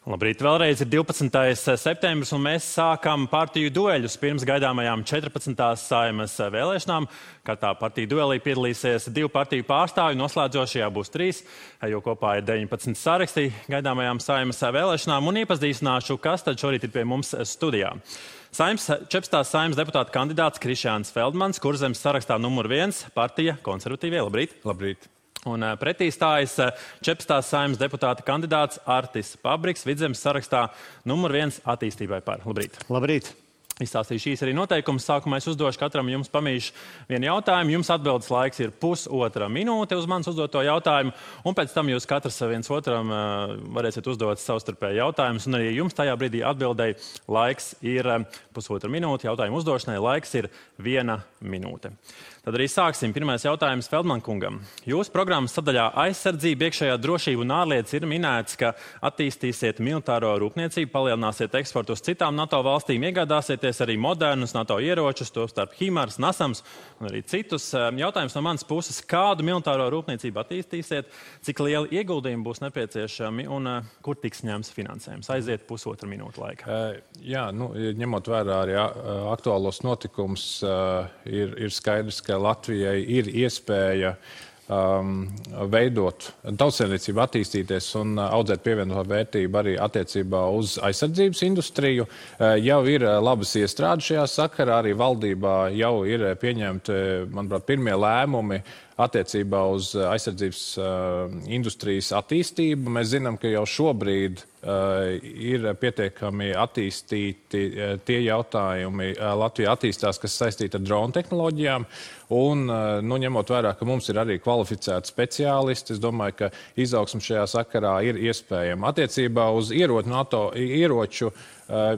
Labrīt, vēlreiz ir 12. septembris, un mēs sākam partiju dueļus pirms gaidāmajām 14. Saeimas vēlēšanām. Katrā partiju duelī piedalīsies 2 partiju pārstāvji, noslēdzošajā būs 3, jo kopā ir 19 sarakstī gaidāmajām Saeimas vēlēšanām, un iepazīstināšu, kas tad šorīt ir pie mums studijā. 14. Saeimas deputāta kandidāts Krišjāns Feldmans, Kurzemes sarakstā numur 1, partija Konservatīvie. Labrīt! Labrīt! Un pretī stājas 14. Saeimas deputāta kandidāts Artis Pabriks, Vidzemes sarakstā numur 1 attīstībai par. Labrīt! Labrīt! Izstāstīšu īsi arī noteikumus. Sākumā es uzdošu katram jums pamīšu vienu jautājumu. Jums atbildes laiks ir pusotra minūte uz manis uzdoto jautājumu, un pēc tam jūs katrs viens otram varēsiet uzdot savstarpēji jautājumus, un arī jums tajā brīdī atbildēji laiks ir pusotra minūte, jautājumu uzdošanai laiks ir 1 minūte. Tad arī sāksim. Pirmais jautājums Feldman kungam. Jūsu programmas sadaļā aizsardzība, iekšējā drošība un ārlietas ir minēts, ka attīstīsiet militāro rūpniecību, palielināsiet eksportu uz citām NATO valstīm, iegādāsieties arī modernus NATO ieročus, tostarp HIMARS, NASAMS un arī citus. Jautājums no manas puses, kādu militāro rūpniecību attīstīsiet, cik lieli ieguldījumi būs nepieciešami un kur tiks ņemts finansējums? Aiziet pusotra minūte laika. Ņemot vērā arī aktuālos notikumus, ir skaidrs, ka Latvijai ir iespēja veidot tautsēmniecību, attīstīties un audzēt pievienoto vērtību arī attiecībā uz aizsardzības industriju. Jau ir labas iestrādes šajā sakarā, arī valdībā jau ir pieņemti, manuprāt, pirmie lēmumi attiecībā uz aizsardzības industrijas attīstību. Mēs zinām, ka jau šobrīd ir pietiekami attīstīti tie jautājumi Latvijā attīstās, kas saistīti ar dronu tehnoloģijām. Un, ņemot vērā, ka mums ir arī kvalificēti speciālisti, es domāju, ka izaugsme šajā sakarā ir iespējama. Attiecībā uz ieroču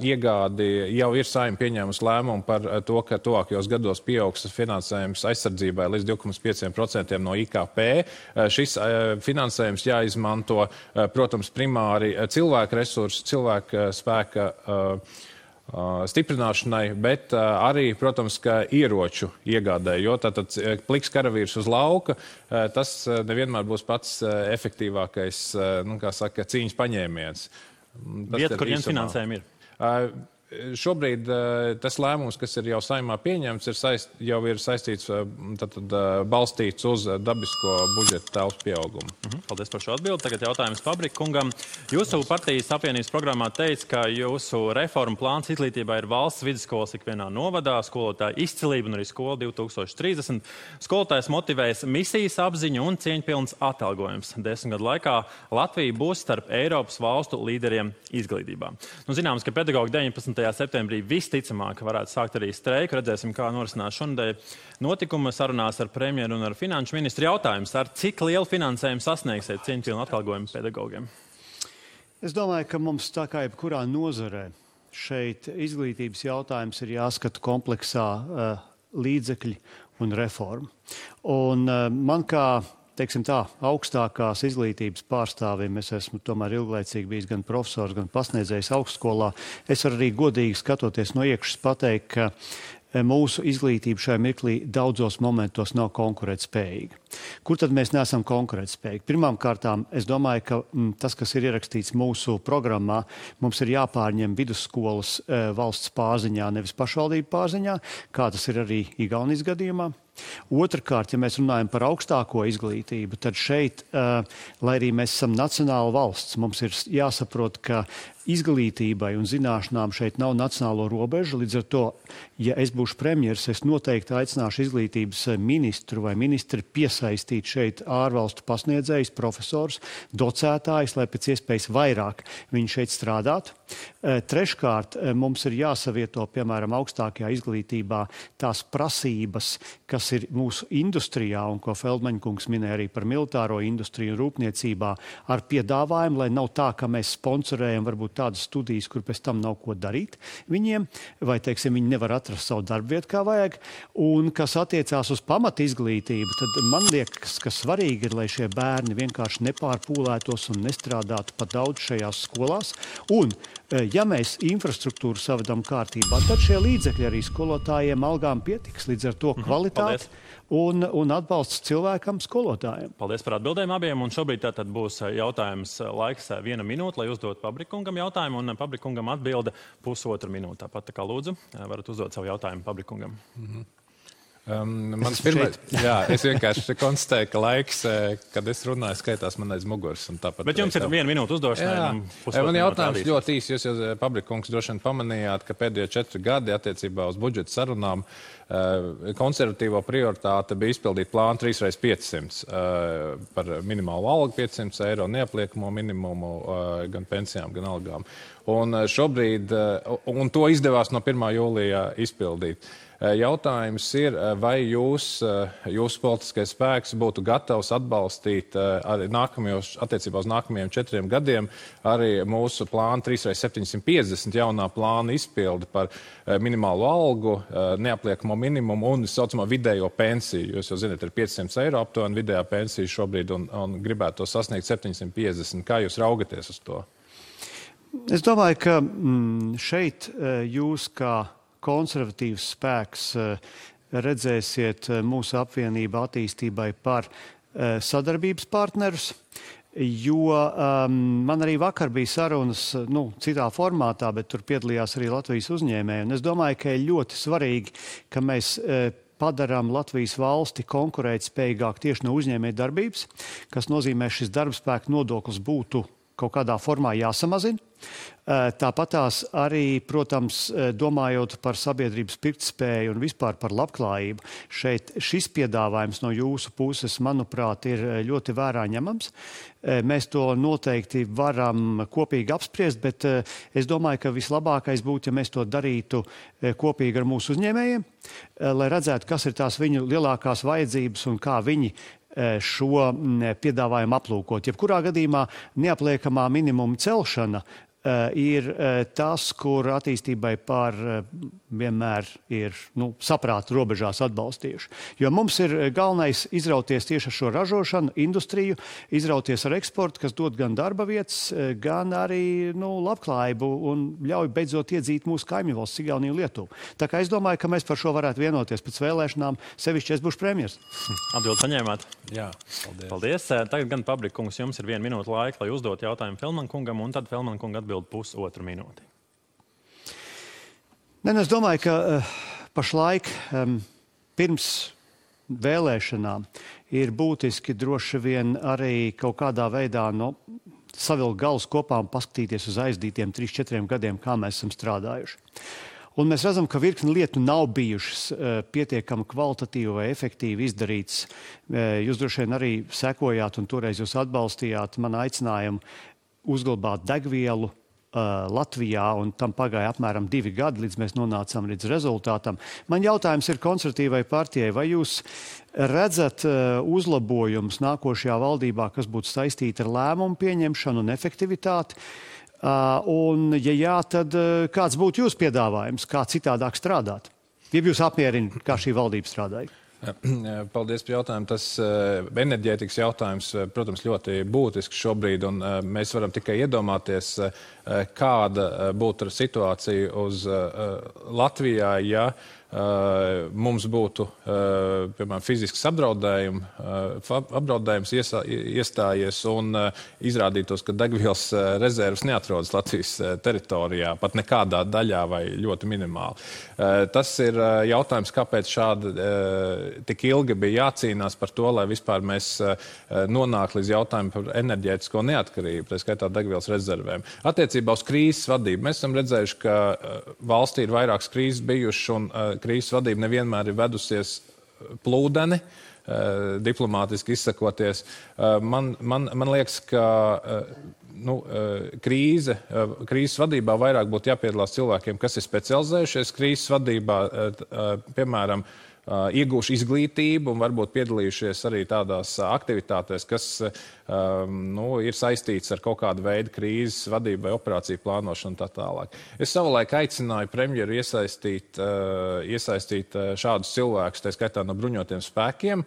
iegādi jau ir Saeima pieņēmusi lēmumu par to, ka tuvākajos gados pieaugs finansējums aizsardzībai līdz 2,5% no IKP. Šis finansējums jāizmanto, protams, primāri cilvēku resursu, cilvēku spēka stiprināšanai, bet arī, protams, ka ieroču iegādē, jo tātad pliks karavīrs uz lauka, tas nevienmēr būs pats efektīvākais, cīņas paņēmiens. Vieta, kur ņemt finansējumu ir? Šobrīd tas lēmums, kas ir jau Saeimā pieņemts, jau ir saistīts, balstīts uz dabisko budžeta telpas pieaugumu. Paldies par šo atbildi. Tagad jautājums Pabrika kungam. Jūsu partijas apvienības programmā teica, ka jūsu reformu plāns izglītībā ir valsts vidusskolas ikvienā novadā, skolotāja izcilība un arī skola 2030. Skolotājs motivēs misijas apziņu un cieņpilns atalgojums. 10 gadu laikā Latvija būs starp Eiropas valstu līderiem izglītībā. Zināms, ka pedagogi 19. septembrī visticamāk varētu sākt arī streiku. Redzēsim, kā norisinās šonadēļ notikuma sarunās ar premjeru un ar finanšu ministru. Jautājums, ar cik lielu finansējumu sasniegsiet cieņpilnu atalgojumu pedagogiem? Es domāju, ka mums tā kā jebkurā nozarē šeit izglītības jautājums ir jāskata kompleksā līdzekļi un reforma. Un man kā augstākās izglītības pārstāvim, es esmu tomēr ilglaicīgi bijis gan profesors, gan pasniedzējs augstskolā. Es varu arī godīgi skatoties no iekšas pateikt, ka mūsu izglītība šajā mirklī daudzos momentos nav konkurētspējīga. Kur tad mēs neesam konkurētspējīgi? Pirmām kārtām, es domāju, ka tas, kas ir ierakstīts mūsu programmā, mums ir jāpārņem vidusskolas valsts pārziņā, nevis pašvaldību pārziņā, kā tas ir arī Igaunijas gadījumā. Otrakārt, ja mēs runājam par augstāko izglītību, tad šeit, lai arī mēs esam nacionāla valsts, mums ir jāsaprot, ka izglītībai un zināšanām šeit nav nacionālo robežu. Līdz ar to, ja es būšu premjeras, es noteikti aicināšu izglītības ministru vai ministri piesaistīt šeit ārvalstu pasniedzējus, profesors, docētājus, lai pēc iespējas vairāk viņi šeit strādātu. Treškārt, mums ir jāsavieto, piemēram, augstākajā izglītībā tās prasības, kas ir mūsu industrijā, un ko Feldmaņa kungs minēja arī par militāro industriju un rūpniecībā, ar piedāvājumu, lai nav tā, ka mēs sponsorējam varbūt tādas studijas, kur pēc tam nav ko darīt viņiem, vai, viņi nevar atrast savu darbvietu kā vajag. Un kas attiecās uz pamat izglītību, tad man liekas, ka svarīgi ir, lai šie bērni vienkārši nepārpūlētos un nestrādātu pa daudz šajās skolās. Un ja mēs infrastruktūru savedam kārtībā, tad šie līdzekļi arī skolotājiem algām pietiks. Līdz ar to kvalitāte kvalitāti un atbalsts cilvēkam, skolotājiem. Paldies par atbildēm abiem. Un šobrīd tātad būs jautājums laiks 1 minūte, lai uzdot Pabrikungam jautājumu. Un Pabrikungam atbilde 1,5 minūte. Tāpat tā kā lūdzu, varat uzdot savu jautājumu Pabrikungam. Mans pirmais, jā, es vienkārši konstatēju, ka laiks, kad es runāju, skaitās man aiz muguras. Bet jums ir 1 minūte uzdošanai. Man jautājums ļoti īsi. Jūs jau, Pabrikungs, droši vien pamanījāt, ka pēdējo 4 gadi attiecībā uz budžeta sarunām konservatīvo prioritāte bija izpildīt plānu 3x500 par minimālu algu 500 eiro, neapliekamo minimumu gan pensijām, gan algām. Un šobrīd, un to izdevās no 1. jūlijā izpildīt. Jautājums ir, vai jūsu politiskais spēks būtu gatavs atbalstīt arī attiecībā uz nākamajiem 4 gadiem arī mūsu plānu 3x750 jaunā plāna izpildi par minimālo algu, neapliekamo minimumu un saucamo vidējo pensiju. Jūs jau zināt, ir 500 eiro aptuveni vidējā pensija šobrīd un gribētu to sasniegt 750. Kā jūs raugaties uz to? Es domāju, ka šeit jūs kā konservatīvs spēks redzēsiet mūsu apvienību attīstībai par sadarbības partnerus, jo man arī vakar bija sarunas, citā formātā, bet tur piedalījās arī Latvijas uzņēmēji. Un es domāju, ka ir ļoti svarīgi, ka mēs padarām Latvijas valsti konkurētspējīgāk tieši no uzņēmēju darbības, kas nozīmē, šis darbspēka nodoklis būtu kaut kādā formā jāsamazina. Tāpatās arī, protams, domājot par sabiedrības pirktspēju un vispār par labklājību, šis piedāvājums no jūsu puses, manuprāt, ir ļoti vērā ņemams. Mēs to noteikti varam kopīgi apspriest, bet es domāju, ka vislabākais būtu, ja mēs to darītu kopīgi ar mūsu uzņēmējiem, lai redzētu, kas ir tās viņu lielākās vajadzības un kā viņi šo piedāvājumu aplūkot. Jebkurā gadījumā neapliekamā minimuma celšana ir tas, kur attīstībai vienmēr ir saprāta robežās atbalstījuši. Jo mums ir galvenais izrauties tieši ar šo ražošanu, industriju, izrauties ar eksportu, kas dod gan darba vietas, gan arī labklājību un ļauj beidzot iedzīt mūsu kaimiņu valsts Igauniju un Lietuvu. Tā kā es domāju, ka mēs par šo varētu vienoties pēc vēlēšanām, sevišķi es būšu premjers. Atbildi saņēmāt? Jā, paldies. Tagad gan Pabrikungs, jums ir 1 minūte laika, lai uzdot jautājumu Felman kungam, un tad Felman kunga atbild 1,5 minūti. Es domāju, ka pašlaik pirms vēlēšanām ir būtiski droši vien arī kaut kādā veidā savilkt galus kopā un paskatīties uz aizdītiem 3-4 gadiem, kā mēs esam strādājuši. Un mēs redzam, ka virkni lietu nav bijušas pietiekami kvalitatīvi vai efektīvi izdarītas. Jūs droši vien arī sekojāt un toreiz jūs atbalstījāt manu aicinājumu uzglabāt degvielu Latvijā, un tam pagāja apmēram 2 gadi, līdz mēs nonācām līdz rezultātam. Man jautājums ir konservatīvai partijai, vai jūs redzat uzlabojumus nākošajā valdībā, kas būtu saistīti ar lēmumu pieņemšanu un efektivitāti? Un, ja jā, tad kāds būtu jūsu piedāvājums, kā citādāk strādāt? Ja jūs apmierina, kā šī valdība strādāja? Paldies par jautājumu. Tas enerģētikas jautājums, protams, ļoti būtisks šobrīd, un mēs varam tikai iedomāties, kāda būtu situācija uz Latvijā, ja mums būtu, piemēram, fizisks apdraudējums iestājies un izrādītos, ka degvielas rezervas neatrodas Latvijas teritorijā, pat nekādā daļā vai ļoti minimāli. Tas ir jautājums, kāpēc šādi tik ilgi bija jācīnās par to, lai vispār mēs nonāktu līdz jautājumu par enerģētisko neatkarību, tā skaitā degvielas rezervēm. Attiecībā uz krīzes vadību mēs esam redzējuši, ka valstī ir vairākas krīzes bijušas un krīzes vadība nevienmēr ir vedusies plūdeni, diplomātiski izsakoties. Man liekas, ka krīzes vadībā vairāk būtu jāpiedalās cilvēkiem, kas ir specializējušies krīzes vadībā, piemēram, iegūši izglītību un varbūt piedalījušies arī tādās aktivitātēs, kas ir saistīts ar kaut kādu veidu krīzes vadību vai operāciju plānošanu un tā tālāk. Es savulaik aicināju premjeru iesaistīt šādus cilvēkus, tā skaitā no bruņotiem spēkiem,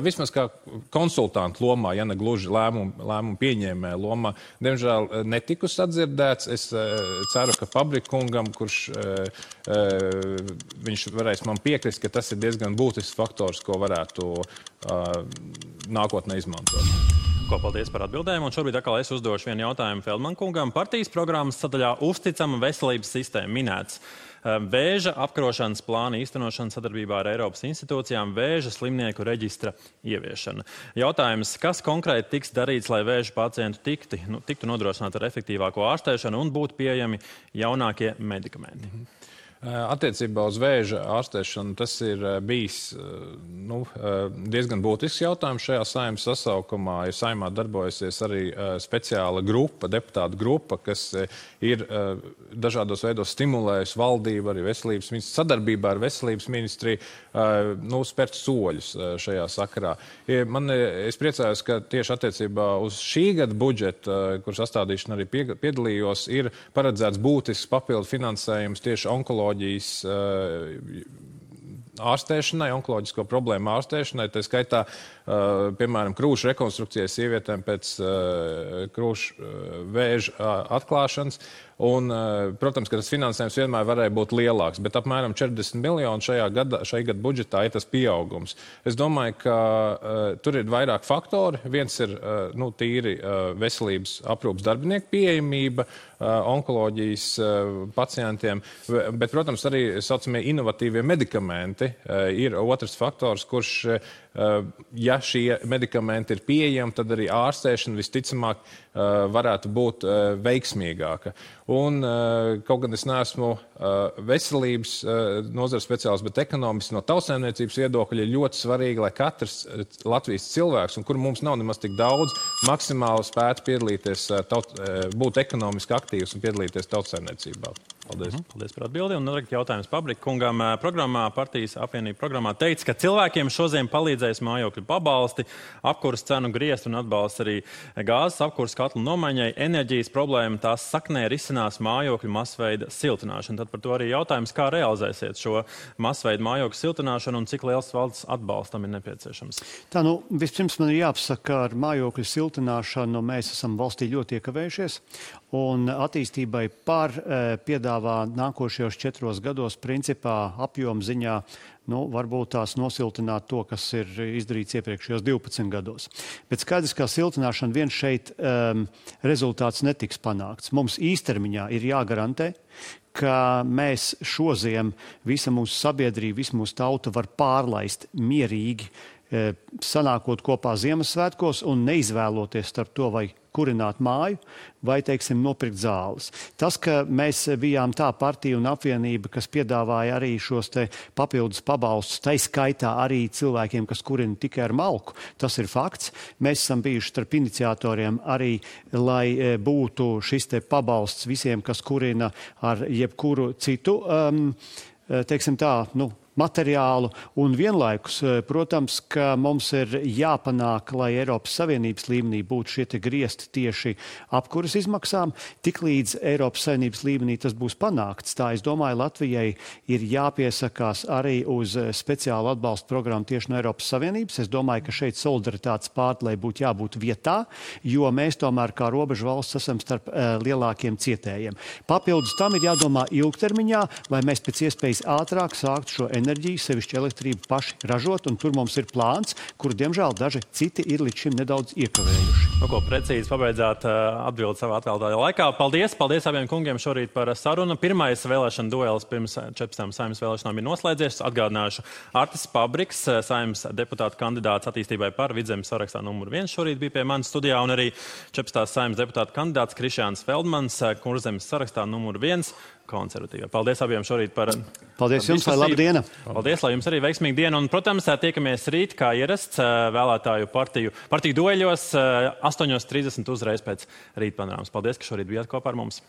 vismaz kā konsultantu lomā, ja ne gluži lēmumu pieņēmēja lomā. Diemžēl netiku sadzirdēts. Es ceru, ka Pabrikkungam, kurš viņš varēs man piekrist, ka tas ir diezgan būtisks faktors, ko varētu nākotnē izmantot. Paldies par atbildēm. Un šobrīd atkal es uzdošu vienu jautājumu Feldman kungam. Partijas programmas sadaļā uzticama veselības sistēma minēts vēža apkarošanas plāna īstenošana sadarbībā ar Eiropas institūcijām, vēža slimnieku reģistra ieviešana. Jautājums, kas konkrēti tiks darīts, lai vēža pacientu tiktu nodrošināt ar efektīvāko ārstēšanu un būtu pieejami jaunākie medikamenti? Attiecībā uz vēža ārstēšanu tas ir bijis diezgan būtisks jautājums šajā Saeimas sasaukumā. Ir Saeimā darbojusies arī speciāla grupa, deputātu grupa, kas ir dažādos veidos stimulējusi valdību, arī veselības ministriju, sadarbībā ar veselības ministriju spērt soļus šajā sakarā. Es priecājos, ka tieši attiecībā uz šī gada budžetu, kur sastādīšana arī piedalījos, ir paredzēts būtisks papildu finansējums tieši onkoloģijas ārstēšanai, onkoloģisko problēmu ārstēšanai, tā skaitā, piemēram, krūšu rekonstrukcijai sievietēm pēc krūšu vēža atklāšanas. Un, protams, ka tas finansējums vienmēr varēja būt lielāks, bet apmēram 40 miljoni šajā gada budžetā ir tas pieaugums. Es domāju, ka tur ir vairāk faktori. Viens ir tīri veselības aprūpas darbinieku pieejamība onkoloģijas pacientiem, bet, protams, arī saucamie inovatīvie medikamenti ir otrs faktors, kurš, ja šie medikamenti ir pieejami, tad arī ārstēšana visticamāk varētu būt veiksmīgāka. Un kaut gan es neesmu veselības nozares speciālists, bet ekonomiski no tautssaimniecības viedokļa ir ļoti svarīgi, lai katrs Latvijas cilvēks, un kur mums nav nemaz tik daudz, maksimāli spētu piedalīties, būt ekonomiski aktīvs un piedalīties tautssaimniecībā. Paldies. Paldies par atbildi. Un jautājums Pabrikkungam. Partijas apvienība programmā teica, ka cilvēkiem šodien palīdzēs mājokļu pabalsti, apkuras cenu griezt un atbalsts arī gāzes apkuras katlu nomaiņai. Enerģijas problēma tās saknē risinās mājokļu masveida siltināšanu. Tad par to arī jautājums, kā realizēsiet šo masveidu mājokļu siltināšanu un cik liels valsts atbalstam ir nepieciešams. Tā, vispirms man ir jāpasaka, ka ar mājokļu siltināšanu mēs esam valstī ļoti iekavējušies. Un attīstībai piedāvā nākošajos 4 gados principā apjoma ziņā varbūt tās nosiltināt to, kas ir izdarīts iepriekšējos 12 gados. Bet skaidrs, ka siltināšana vien šeit rezultāts netiks panākts. Mums īstermiņā ir jāgarantē, ka mēs šoziem visa mūsu sabiedrība, visa mūsu tauta var pārlaist mierīgi, sanākot kopā Ziemassvētkos un neizvēloties starp to, vai kurināt māju, vai, teiksim, nopirkt zāles. Tas, ka mēs bijām tā partija un apvienība, kas piedāvāja arī šos te papildus pabalstus, tai skaitā arī cilvēkiem, kas kurina tikai ar malku, tas ir fakts. Mēs esam bijuši starp iniciatoriem arī, lai būtu šis te pabalsts visiem, kas kurina ar jebkuru citu, teiksim tā, materiālu, un vienlaikus, protams, ka mums ir jāpanāk, lai Eiropas Savienības līmenī būtu šie te griezti tieši apkuras izmaksām. Tiklīdz Eiropas Savienības līmenī tas būs panākts, tā es domāju, Latvijai ir jāpiesakās arī uz speciālu atbalstu programmu tieši no Eiropas Savienības. Es domāju, ka šeit solidaritātes pārdalei būtu jābūt vietā, jo mēs tomēr kā robežu valsts esam starp lielākiem cietējiem. Papildus tam ir jādomā ilgtermiņā, lai mēs pēc iespējas ātrāk sāktu šo enerģiju, sevišķi elektrību paši ražot, un tur mums ir plāns, kuru, diemžēl, daži citi ir līdz šim nedaudz iekavējuši. Ko precīzi pabeidzāt atbildi savā atvēlētajā laikā. Paldies abiem kungiem šorīt par sarunu. Pirmais vēlēšana duelis pirms 14 Saeimas vēlēšanām ir noslēdzies. Atgādināšu, Artis Pabriks, Saeimas deputāta kandidāts attīstībai par Vidzemes sarakstā numur 1 šorīt bija pie manas studijā, un arī 14 Saeimas deputāta kandidāts Krišjāns Feldmans, Kurzemes sarakstā numur 1. konservatīvā. Paldies abiem šorīt par Paldies jums, lai laba diena. Paldies, lai jums arī veiksmīga diena. Un, protams, tiekamies rīt, kā ierasts, vēlētāju partiju dueļos 8:30 uzreiz pēc rītpanorāmas. Paldies, ka šorīt bijāt kopā ar mums.